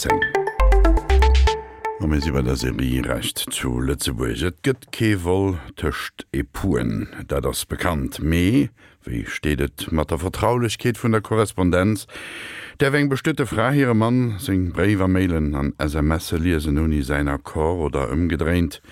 10. A mir si bei der Serie Recht zu Lëtzebuerg. Et gëtt kee Vol tëscht Epouxen, dat ass bekannt. Mee wéi steet et mat der Vertraulechkeet vun der Korrespondenz? Däerf eng bestuete Fra hirem Mann seng Bréiwer, Mailen an SMSe liesen ouni säin Accord oder ëmgedréint?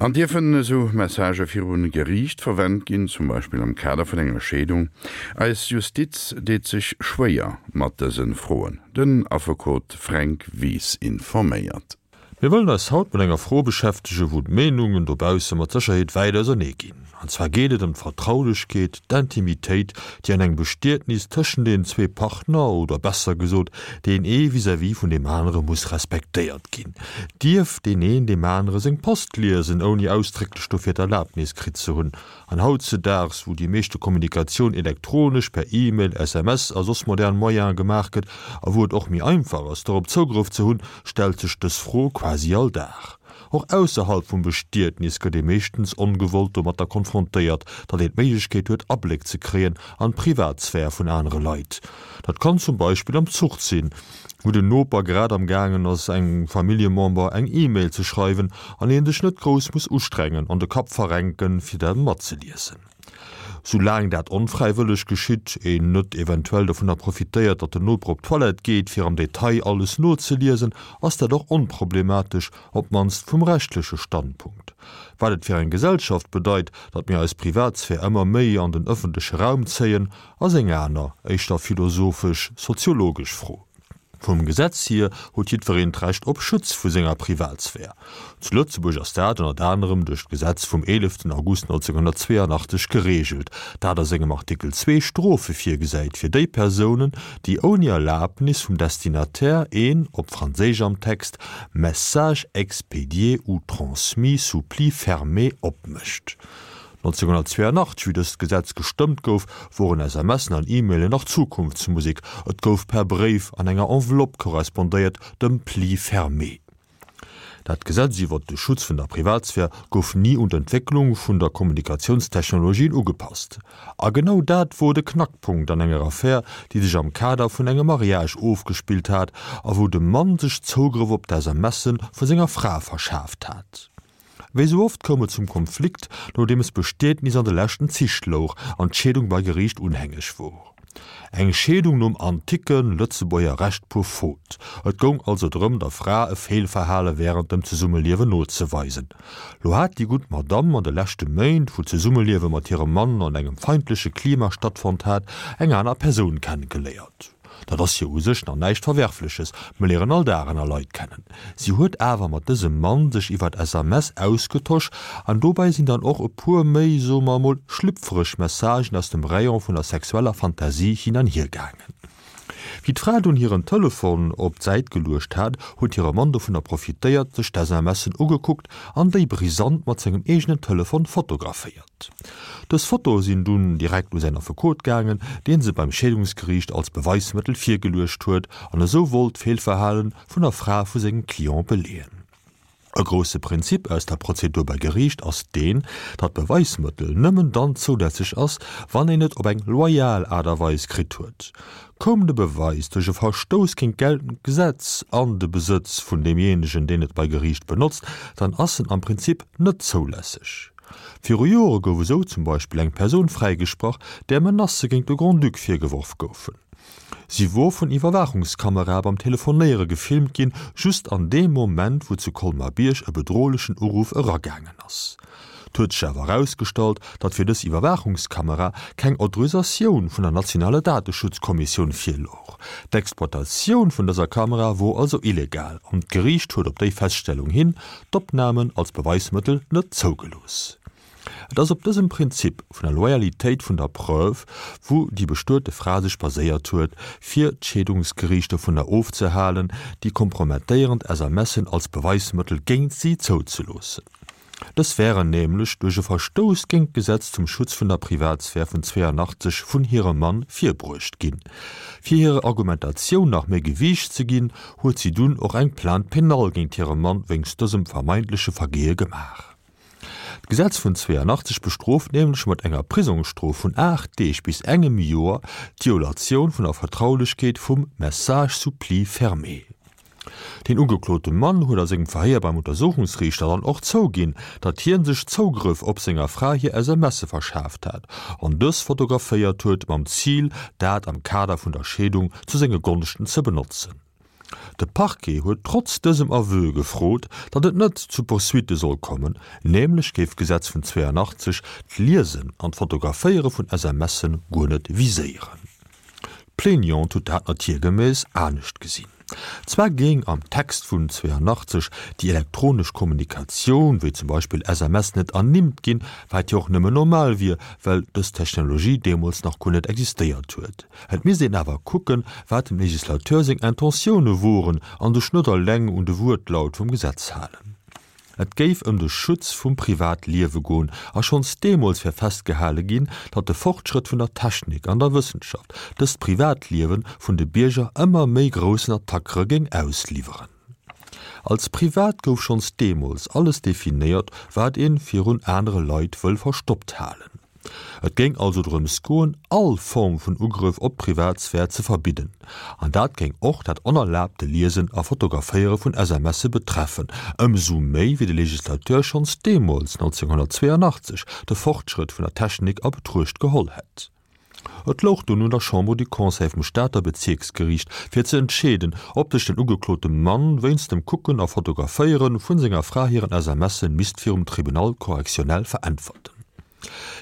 An dierfen esou Messagë viru Geriicht verwent ginn, zum Beispill am Kader vun enger Scheedung? Eis Justiz deet sech schwéier mat dëse Froen. Den Affekot Fränk Wies informéiert. Mir wëllen eis haut mat enger Fro beschäftegen, wou d'Meenungen dobausse mat Sécherheet wäit ausernee ginn. An zwar geet et ëm d'Vertraulechkeet, d'Intimitéit, déi an engem Bestietnis tëschent deenen zwee Partner, oder besser gesot, deen ee vis-à-vis vun deem anere muss respektéiert ginn. Dierf deen een deem anere seng Post liesen, ouni ausdrécklech dofir d'Erlaabnis kritt ze hunn? An hautzedaags, wou déi meeschte Kommunikatioun elektronesch, per E-Mail, SMS a soss modern Moyene gemaach gëtt a wou et och méi einfach ass, dorop Zougrëff ze hunn, stellt sech dës Fro quasi all Dag. Och ausserhalb vum Bestietnis gëtt ee meeschtens ongewollt domatter konfrontéiert, datt een d'Méiglechkeet huet, Abléck ze kréien an d'Privatsphär vun anere Leit. Dat kann zum Beispill am Zuch sinn, wou den Noper grad am gaangen ass engem Familljemember eng E-Mail ze schreiwen an een sech net grouss muss ustrengen an de Kapp verrenken fir dat matzeliesen. Soulaang dat onfräiwëlleg geschitt, een net eventuell dovunner profitéiert datt den Noper op d'Toilette geet fir am Detail alles nozeliesen, ass dat och onproblematesch, op d'mannst vum rechtleche Standpunkt. Wat et fir eng Gesellschaft bedeit, datt mir eis Privatsphär ëmmer méi an den ëffentleche Raum zéien, ass eng aner, éischter philosophesch-soziologesch Fro. Vum Gesetz hier huet jiddwereen d'Recht op Schutz vu senger Privatsphär. Zu Lëtzebuerg ass dat ënnert anerem duerch d'Gesetz vum 11 August 1982 gereegelt, dat a sengem Artikel 2 Strofe virgesäit fir déi Persounen, déi ouni Erlabnis vum Destinataire een, op Franséisch am Text, message expédié ou transmis sous pli fermé opmécht. 1982, wéi dëst Gesetz gestëmmt gouf, woren SMSen an E-Mailen nach Zukunftsmusek, et gouf per Bréif an enger Enveloppe korrespondéiert, dem Pli fermé. Dat Gesetz iwwert de Schutz vun der Privatsphär gouf ni un d'Entwécklung vun der Kommunikatiounstechnologien ugepasst. A genau dat wor de Knackpunkt an enger Affär, déi sech am Kader vun engem Mariage ofgespillt hat a wou de Mann sech Zougrëff op d'SMSe vu senger Fra verschaaft hat. Wéi sou oft koum et zum Konflikt, nodeems d'Bestietnis an de leschten Zich louch an d'Scheedung bei Geriicht unhängeg wor. Eng Scheedung nom anticke Lëtzebuerger Recht pour faute. Et goung also drëm, der Fra e Feelverhale wärend dem Zesummeliewen nozeweisen. Lo hat déi gutt Madamm an de leschte Méint, wou d'Zesummeliewe mat hirem Mann an engem feindleche Klima stattfonnt hat, eng aner Persoun kennegeléiert. Dat ass jo u sech nach näischt Verwerfleches, mer léieren all Dag aner Leit kennen. Si huet awer mat dësem Mann sech iwwert SMS ausgetosch an dobäi sinn dann och e puer méi, soe mer emol, schlüpfereg Messagen aus dem Rayon vun der sexueller Fantasie hin an hier gaangen. Wéi d'Fra dunn hiren Telefon op d'Säit geluecht hat, huet hire Mann dovunner profitéiert, sech d'SMSen ugekuckt an déi brisant mat sengem eegenen Telefon fotograféiert. Dës Fotoe sinn dunn direkt u säin Affekot gaangen, dee se beim Scheedungsgeriicht als Beweismëttel virgeluecht huet an esou wollt d'Feelverhale vun der Fra vu sengem Client beleeën. E grousse Prinzip aus der Prozedur bei Geriicht ass deen, datt Beweismëttel nëmmen dann zoulässeg ass, wann een et op eng loyal Aart a Weis kritt huet. Koum de Beweis duerch e Verstouss géint geltend Gesetz an de Besëtz vun deemjéinegen, deen et bei Geriicht benotzt, dann ass en am Prinzip net zoulässeg. Viru Jore gouf esou zum Beispill eng Persoun fräigesprach, där Menacë géint de Grand-Duc virgeworf goufen. Si wor vun Iwwerwaachungskamerae beim Telefonéiere gefilmt ginn, just an deem Moment, wou zu Colmar-Bierg e bedrohlechen Uruff eragaangen ass. Et huet sech awer erausgestallt, datt fir dës Iwwerwaachungskamera keng Autorisatioun vun der nationaler Dateschutzkommissioun virlouch. D'Exploitatioun vun dëser Kamera wor also illegal an d'Geriicht huet op déi Feststellung hin d'Opnamen als Beweismëttel net zougelooss. Et ass op dësem Prinzip vun der Loyalitéit vun der Preuve, wou déi bestuete Fra sech baséiert huet, fir d'Scheedungsgeriicht dovunner ofzehalen, déi kompromettéierend SMSen als Beweismëttel géint si zouzeloossen. Dës wären nämlech duerch e Verstouss géint d'Gesetz zum Schutz vun der Privatsphär vun 82 vun hirem Mann virbruecht ginn. Fir hirer Argumentatioun nach méi Gewiicht ze ginn, huet si dunn och eng Plainte pénale géint hire Mann wéinst dësem vermeintleche Vergeeë gemaach. D'Gesetz vun 82 bestrooft nämlech mat enger Prisongsstrof vun 8 Deeg bis engem Joer d'Violatioun vun der Vertraulechkeet vum Message sous pli fermé. Den ugeklote Mann huet a sengem Verhéier beim Untersuchungsriichter dann och zouginn, datt hien sech Zougrëff op senger Fra hir SMSe verschaaft hat an dës fotograféiert huet, mam Zil, dat am Kader vun der Scheedung zu senge Gonschten ze benotzen. De Parquet huet trotz dësem Aveu gefrot, datt et net zu Poursuitte soll kommen, nämlech géif d'Gesetz vun 82 d'Liesen an d'Fotograféiere vun SMSe guer net viséieren. D'Plaignante huet dat natiergemäss anescht gesinn. Zwar géing am Text vun 82 déi elektronesch Kommunikatioun, wéi zum Beispill SMS, net ernimmt ginn, wat jo och nëmmen normal wier, well dës Technologie deemools nach guer net existéiert huet. Et misst een awer kucken, wat dem Legislateur seng Intentioune woren an sech net eleng un de Wuertlaut vum Gesetz halen. Et géif ëm de Schutz vum Privatliewe goen a schonns deemools wär festgehale ginn, datt de Fortschrëtt vun der Technik an der Wëssenschaft dëst Privatliewe vun de Bierger ëmmer méi groussen Attackere géing ausliwweren. Als privat gouf schonns deemools alles definéiert, wat ee virun anere Leit wëll verstoppt halen. Et géing also drëms goen, all Form vun Ugrëff op d'Privatsphär ze verbidden. An dat géing och dat onerlaabte Liesen a Fotograféiere vun SMSe betreffen, ëmsou méi wéi de Legislateur schonns deemools, 1982, de Fortschrëtt vun der Technik a Betruecht geholl hätt. Et louch dunn un der Chambre du Conseil vum Stater Bezierksgeriicht, fir ze entscheeden, ob sech den ugeklote Mann wéinst dem Kucken a Fotograféiere vun senger Fra hiren SMSe misst virum Tribunal correctionnel veräntwerten.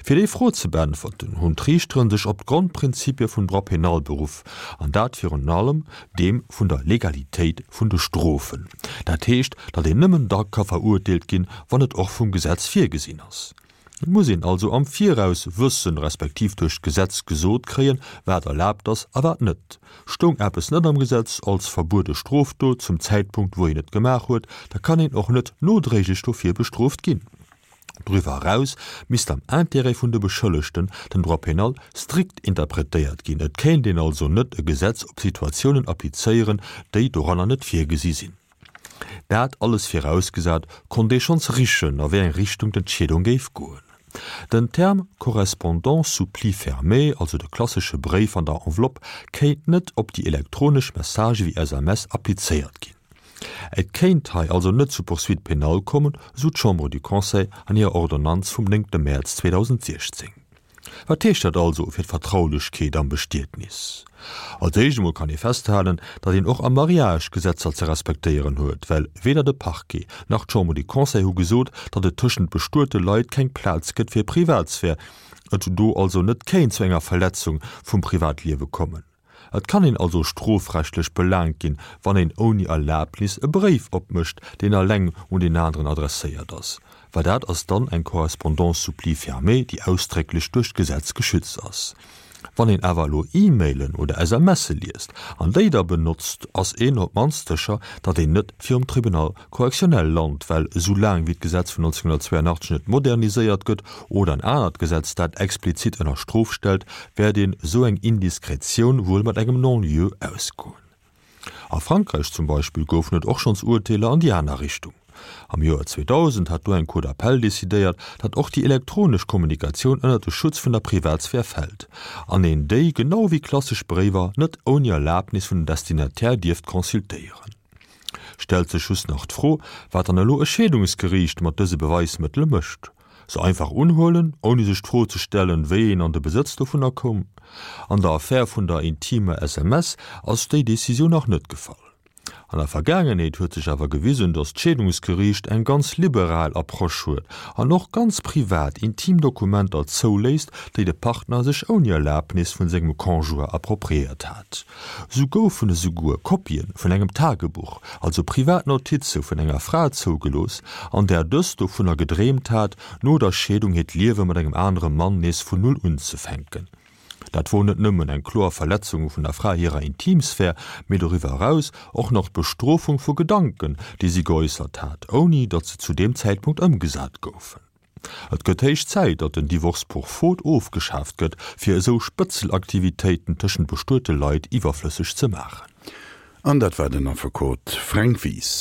Fir déi Fro ze beäntwerten, hunn d'Riichteren sech op d'Grondprinzipie vum Droit pénal beruff, an dat virun allem deem vun der Legalitéit vun de Strofen. Dat heescht, datt een nëmmen da ka verurteelt ginn, wann et och vum Gesetz virgesinn ass. Et muss een also am Viraus wëssen, respektiv duerch d'Gesetz gesot kréien, wat erlaabt ass a wat net. Stoung eppes net am Gesetz als verbuede Strofdot zum Zäitpunkt, wou een et gemaach huet, da kann een och net nodréiglech dofir bestrooft ginn. Doriwwer eraus misst am Intérêt vun de Beschëllegten den Droit pénal strikt interpretéiert ginn. Et kéint een also net e Gesetz op Situatiounen applizéieren, déi doranner net virgesi sinn. Dat alles virausgesat, konnt ee schonns richen, a wéi eng Richtung d'Entscheedung géif goen. Den Term Correspondance sous pli fermé, also de klassesche Bréif an der Enveloppe, kéint net op déi elektronesch Messagë wéi SMS applizéiert ginn. Et kéint hei also net zu Poursuites pénales kommen, esou d'Chambre du Conseil an hirer Ordonnanz vum 9 Mäerz 2016. Wat heescht dat also fir d'Vertraulechkeet am Bestietnis? Als éischt emol kann ee festhalen, datt een och am Mariage Gesetzer ze respektéieren huet, well weder de Parquet nach d'Chambre du Conseil hu gesot, datt et tëschent bestuete Leit keng Plaz gëtt fir Privatsphär, et do also net kéint zu enger Verletzung vum Privatliewe kommen. Et kann een also strofrechtlech belaangt ginn, wann een ouni Erlabnis e Bréif opmécht, deen eleng un deen aneren adresséiert ass, well dat ass dann eng Correspondance sous pli fermé, déi ausdrécklech duerch d'Gesetz geschützt ass. Wann een awer elo E-Mailen oder SMSe liest an déi da benotzt, ass een op d'mannst sécher, datt een net virum Tribunal correctionnel lant, well esou laang wéi d'Gesetz vun 1982 net moderniséiert gëtt oder en anert Gesetz dat explizit ënner Strof stellt, wäert een esou eng Indiskretioun wuel mat engem Non-lieu ausgoen. A Frankräich zum Beispill goufen et och schonns Urteeler an déi aner Richtung. Am Joer 2000 hat do eng Cour d'appel decidéiert, datt och déi elektronesch Kommunikatioun ënnert de Schutz vun der Privatsphär fält an een déi, genau wéi klassesch Bréiwer, net ouni Erlabnis vun den Destinataire dierft consultéieren. Stellt sech just nach d'Fro, wat dann elo e Scheedungsgeriicht mat dëse Beweismëttele mécht. Se einfach unhuelen, ouni sech d'Fro ze stellen, wéi een an de Besëtz dovunner koum? An der Affär vun der intimer SMS ass déi Decisioun nach net gefall. An der Vergaangenheet huet sech awer gewisen, datt d'Scheedungsgeriicht eng ganz liberal Approche huet an och ganz privat, intim Dokumenter zouléisst, déi de Partner sech ouni Erlabnis vun sengem Conjoint appropriéiert hat. Sou goufen esouguer Kopien vun engem Tagebuch, also privat Notize vun enger Fra zougelooss, an där dës dovunner gedreemt hat, no der Scheedung hiert Liewe mat engem anere Mann nees vun Null unzefänken. Dat wor net nëmmen eng kloer Verletzung vun der Fra hirer Intimsphär, mee doriwwer eraus och nach d'Bestrofung vu Gedanken, déi si geäussert hat, ouni datt se zu deem Zäitpunkt ëmgesat goufen. Et gëtt héich Zäit, datt den Divorce pour faute ofgeschaaft gëtt, fir esou Spëtzelaktivitéiten tëschent bestuete Leit iwwerflësseg ze maachen. An dat war den Affekot Fränk Wies.